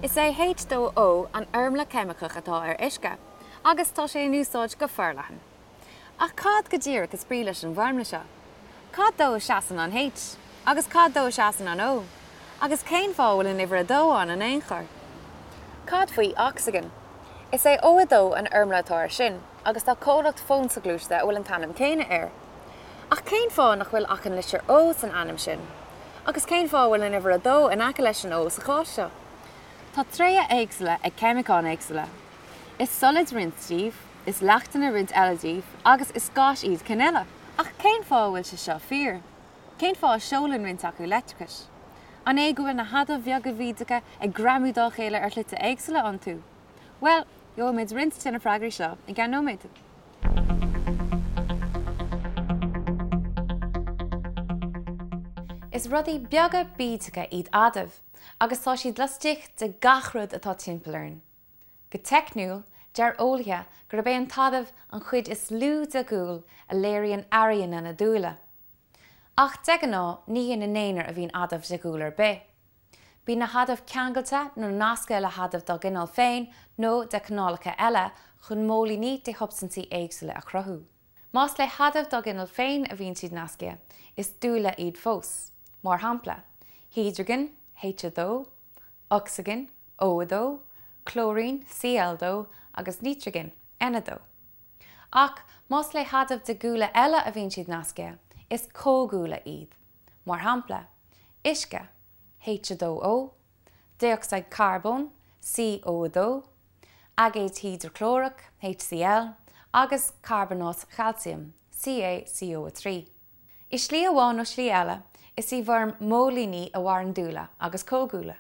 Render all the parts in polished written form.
Is é H2O an fhoirmle cheimiceach atá ar uisce, agus tá sé in úsáid go forleathan. Ach cad go díreach is brí leis an bhfoirmle seo? Cad dó a seasann an H? Agus cad dó a seasann an O? Agus cén fáth a bhfuil an uimhir 2 ann in aon chor? Cad faoi ocsaigin? Is é O2 an fhoirmle atá air sin, agus tá comhlacht fón soghluaiste a bhfuil an t-ainm céanna air. Ach cén fáth nach bhfuil ach an litir O san ainm sin? Agus cén fáth a bhfuil an uimhir 2 in aice leis an O sa chás seo? Tá tréithe éagsúla ag ceimiceáin éagsúla. Is solaid roinnt díobh, is leachtanna roinnt eile díobh, agus is gáis iad cinn eile. Ach cén fáth a bhfuil sé seo fíor? Cén fáth a seolann roinnt acu leictreachas? An é go bhfuil na hadaimh bheaga bhídeacha ag greamú dá chéile ar shlite éagsúla iontu? Bhuel, gheobhaimid roinnt de na freagraí seo i gceann nóiméad. Is rudaí beaga bídeacha iad adaimh agus tá siad laistigh de gach rud atá timpeall orainn. Go teicniúil, deir eolaithe gurb é an t-adamh an chuid is lú de dhúil a léiríonn airíonna na dúile. Ach de ghnáth, ní ina n-aonar a bhíonn adamh de dhúil ar bith. Bíonn na hadaimh ceangailte nó nasctha le hadaimh dá gcineál féin nó de chineálacha eile chun móilíní de shubstaintí éagsúla a chruthú. Más le hadaimh dá gcineál féin a bhíonn siad nasctha, is dúile iad fós. Mar shampla, hidrigin, H2, ocsaigin, O2, clóirín, Cl2, agus nítrigin, N2. Ach más le hadaimh de dhúile eile a bhíonn siad nasctha, is comhdhúile iad. Mar shampla, uisce, H2O, dé-ocsaíd charbóin, CO2, aigéad hidreaclórach, HCl, agus carbónáit chailciam, CaCO3. I slí amháin nó slí eile, is i bhfoirm móilíní a mhaireann dúile agus comhdhúile.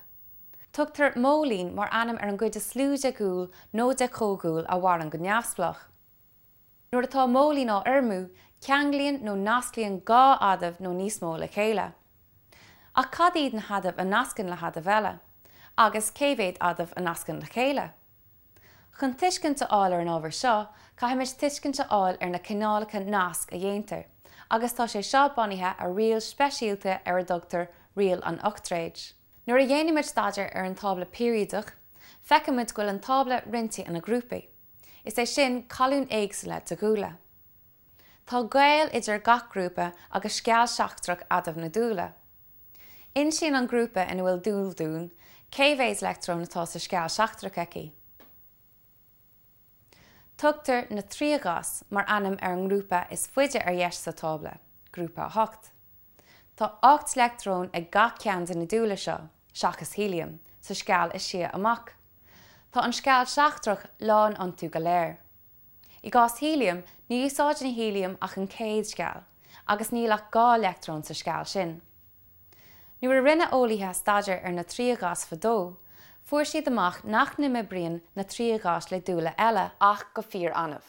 Tugtar móilín mar ainm ar an gcuid is lú de dhúil nó de chomhdhúil a mhaireann go neamhspleách. Nuair atá móilín á fhoirmiú, ceanglaíonn nó nasclaíonn 2 adamh nó níos mó le chéile. Ach cad iad na hadaimh a nascann le hadaimh eile? Agus cé mhéad adamh a nascann le chéile? Chun tuiscint a fháil ar an ábhar seo, caithfimid tuiscint a fháil ar na cineálacha nasc a dhéantar, agus tá sé seo bunaithe ar riail speisialta ar a dtugtar riail an ochtréid. Nuair a dhéanaimid staidéar ar an tábla peiriadach, feicimid go bhfuil an tábla roinnte ina ghrúpaí. Is é sin, colúin éagsúla de dhúile. Tá gaol idir gach grúpa agus sceall seachtrach adamh na dúile. Insíonn an grúpa ina bhfuil dúil dúinn cé mhéad leictreon atá sa sceall seachtrach aici. Tugtar na triathgháis mar ainm ar an ngrúpa is faide ar dheis sa tábla, grúpa 8. Tá 8 leictreon ag gach ceann de na dúile seo, seachas héiliam, sa sceall is sia amach. Tá an sceall seachtrach lán iontu go léir. I gcás héiliam, ní úsáideann héiliam ach an chéad sceall, agus níl ach 2 leictreon sa sceall sin. Nuair a rinne eolaithe staidéar ar na triathgháis fadó, fuair siad amach nach n-imoibríonn na triathgháis le dúile eile ach go fíor-annamh.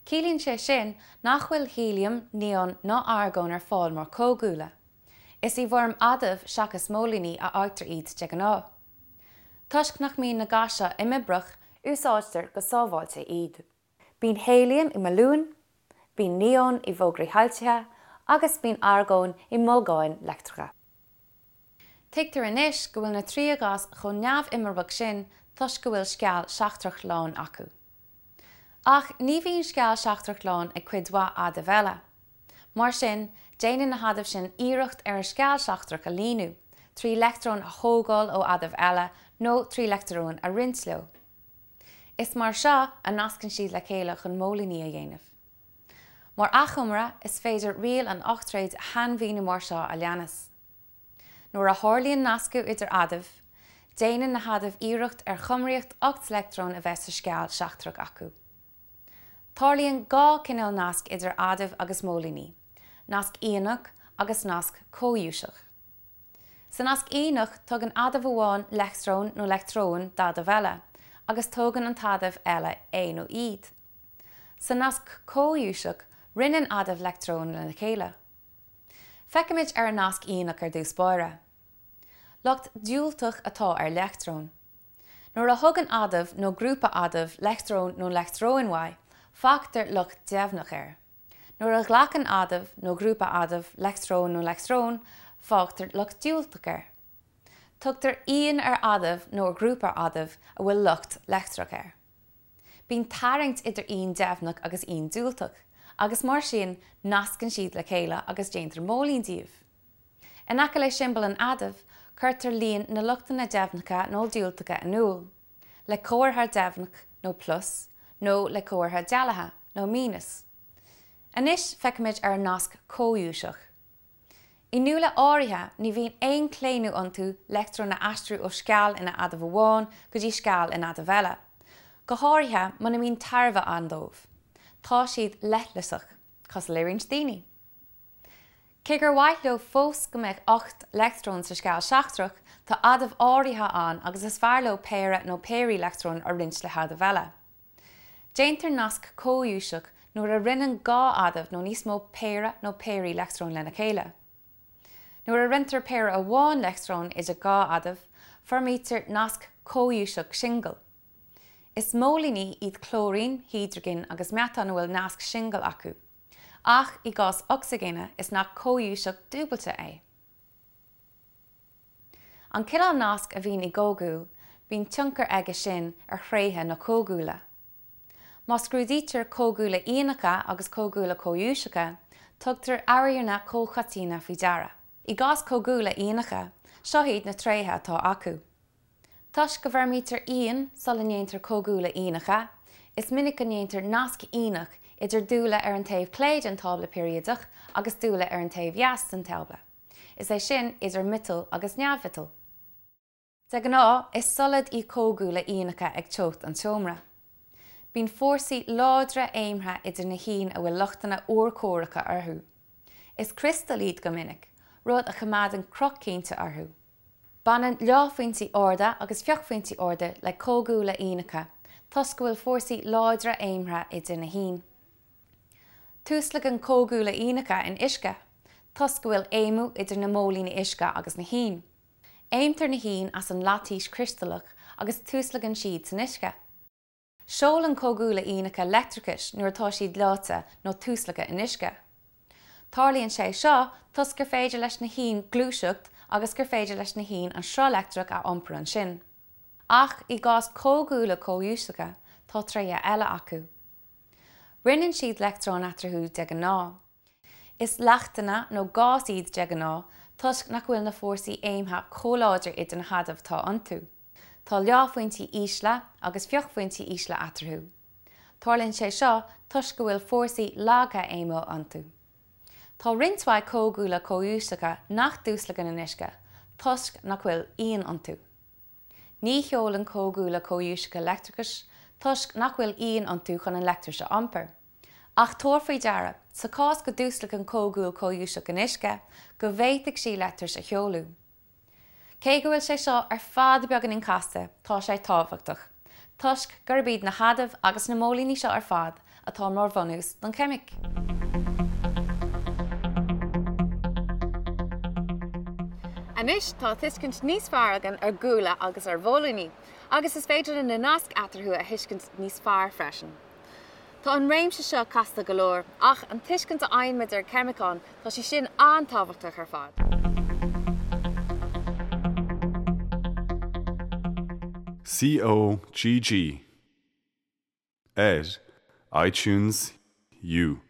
Ciallaíonn sé sin nach bhfuil héiliam, neon ná argón ar fáil mar chomhdhúile. Is i bhfoirm adamh seachas móilíní a fhaightear iad de ghnáth. Toisc nach mbíonn na gáis seo imoibreach, úsáidtear go sábháilte iad. Bíonn héiliam i mbalúin, bíonn neon i bhfógraí soilsithe agus bíonn argón i mbolgáin leictreacha. Tuigtear anois go bhfuil na triathgháis chomh neamh-imoibreach sin toisc go bhfuil sceall seachtrach lán acu. Ach ní bhíonn sceall seachtrach lán ag cuid mhaith adaimh eile. Mar sin, déanann na hadaimh sin iarracht ar an sceall seachtrach a líonadh, trí leictreoin a thógáil ó adaimh eile nó trí leictreoin a roinnt leo. Is mar seo a nascann siad le chéile chun móilíní a dhéanamh. Mar achoimre, is féidir riail an ochtréid a shainmhíniú mar seo a leanas. Nuair a tharlaíonn nascadh idir adaimh, déanann na hadaimh iarracht ar chumraíocht 8 leictreon a bheith sa sceall seachtrach acu. Tarlaíonn 2 chineál nasc idir adaimh agus móilíní, nasc ianach agus nasc comhghuaiseach. Sa nasc ianach, tugann adamh amháin leictreon nó leictreoin d'adamh eile, agus tógann an t-adamh eile é nó iad. Sa nasc comhghuaiseach, roinneann adaimh leictreoin lena chéile. Féachaimis ar an nasc ianach ar dtús báire. Lucht diúltach atá ar leictreon. Nuair a thugann adamh nó grúpa adamh leictreon nó leictreoin uaidh, fágtar lucht deimhneach air. Nuair a ghlacann adamh nó grúpa adamh leictreon nó leictreoin, fágtar lucht diúltach air. Tugtar ian ar adamh nó ar ghrúpa adamh a bhfuil lucht leictreach air. Bíonn tarraingt idir ian deimhneach agus ian diúltach, agus mar sin nascann siad le chéile agus déantar móilín díobh. In aice le siombail an adaimh, cuirtear líon na luchtanna deimhneacha nó diúltacha in iúl, le comhartha deimhneach nó plus, nó le comhartha dealaithe nó míneas. Anois feicfimid ar an nasc comhghuaiseach. I ndúile áirithe, ní bhíonn aon chlaonadh iontu leictreoin a aistriú ó sceall ina adamh amháin go dtí sceall in adamh eile, go háirithe muna mbíonn tairbhe ann dóibh. Tá siad leithleasach, cosúil le roinnt daoine. Cé gur mhaith leo fós go mbeadh 8 leictreon sa sceall seachtrach, tá adaimh áirithe ann agus is fearr leo péire nó péirí leictreon a roinnt le hadaimh eile. Déantar nasc comhghuaiseach nuair a roinneann 2 adamh nó níos mó péire nó péirí leictreon lena chéile. Nuair a roinntear péire amháin leictreon idir 2 adamh, foirmítear nasc comhghuaiseach singil. Is móilíní iad clóirín, hidrigin agus meatán a bhfuil nasc singil acu. Ach i gcás ocsaigine, is nasc comhghuaiseach dúbailte é. An cineál nasc a bhíonn i gcomhdhúil, bíonn tionchar aige sin ar thréithe na comhdhúile. Má scrúdaítear comhdhúile ianacha agus comhdhúile comhghuaiseacha, tugtar airíonna comhchoiteanna faoi deara. I gcás comhdhúile ianacha, seo iad na tréithe atá acu. Toisc go bhfoirmítear iain sula ndéantar comhdhúile ianacha, is minic go ndéantar nasc ianach idir dúile ar an taobh clé den tábla peiriadach agus dúile ar an taobh dheas den tábla. is é sin, idir miotail agus neamh-mhiotail. De ghnáth, is solad iad comhdhúile ianacha ag teocht an tseomra. Bíonn fórsaí láidre aomtha idir na hiain a bhfuil luchtanna urchomhaireacha orthu. Is criostail iad go minic, rud a choimeádann cruth cinnte orthu. Baineann leáphointí arda agus fiuchphointí arda le comhdhúile ianacha toisc go bhfuil fórsaí láidre aomtha idir na hiain. Tuaslagann comhdhúile ianacha in uisce, toisc go bhfuil aomadh idir na móilíní uisce agus na hiain. Aomtar na hiain as an laitíos chriostalach agus tuaslagann siad san uisce. Seolann comhdhúile ianacha leictreachas nuair atá siad leáite nó tuaslagtha in uisce. Tarlaíonn sé seo toisc gur féidir leis na hiain gluaiseacht agus gur féidir leis na hiain an sruth leictreach a iompar ansin. Ach i gcás comhdhúile comhghuaiseacha, tá tréithe eile acu. Roinneann siad leictreoin eatarthu de ghnáth. Is leachtanna nó gás iad de ghnáth toisc nach bhfuil na fórsaí aomtha chomh láidir idir na hadaimh atá iontu. Tá leáphointí ísle agus fiuchphointí ísle eatarthu. Tarlaíonn sé seo toisc go bhfuil fórsaí laga aomtha iontu. Tá roinnt mhaith comhdhúile comhghuaiseacha nach dtuaslagann in uisce toisc nach bhfuil iain iontu. Ní sheolann comhdhúile comhghuaiseacha leictreachas toisc nach bhfuil iain iontu chun an leictreachas a iompar. Ach tabhair faoi deara, sa chás go dtuaslagann comhdhúil comhghuaiseach in uisce, go bhféadfaidh sí leictreachas a sheoladh. Cé go bhfuil sé seo ar fad beagáinín casta, tá sé tábhachtach, toisc gurb iad na hadaimh agus na móilíní seo ar fad atá mar bhunús don cheimic. Anois tá tuiscint níos fearr againn ar dhúile agus ar mhóilíní, agus is féidir linn na naisc eatarthu a thuiscint níos fearr freisin. Tá an réimse seo casta go leor, ach an tuiscint a fhaigheann muid ar cheimiceáin, tá sí sin an-tábhachtach ar fad. COGG. Ar iTunes U.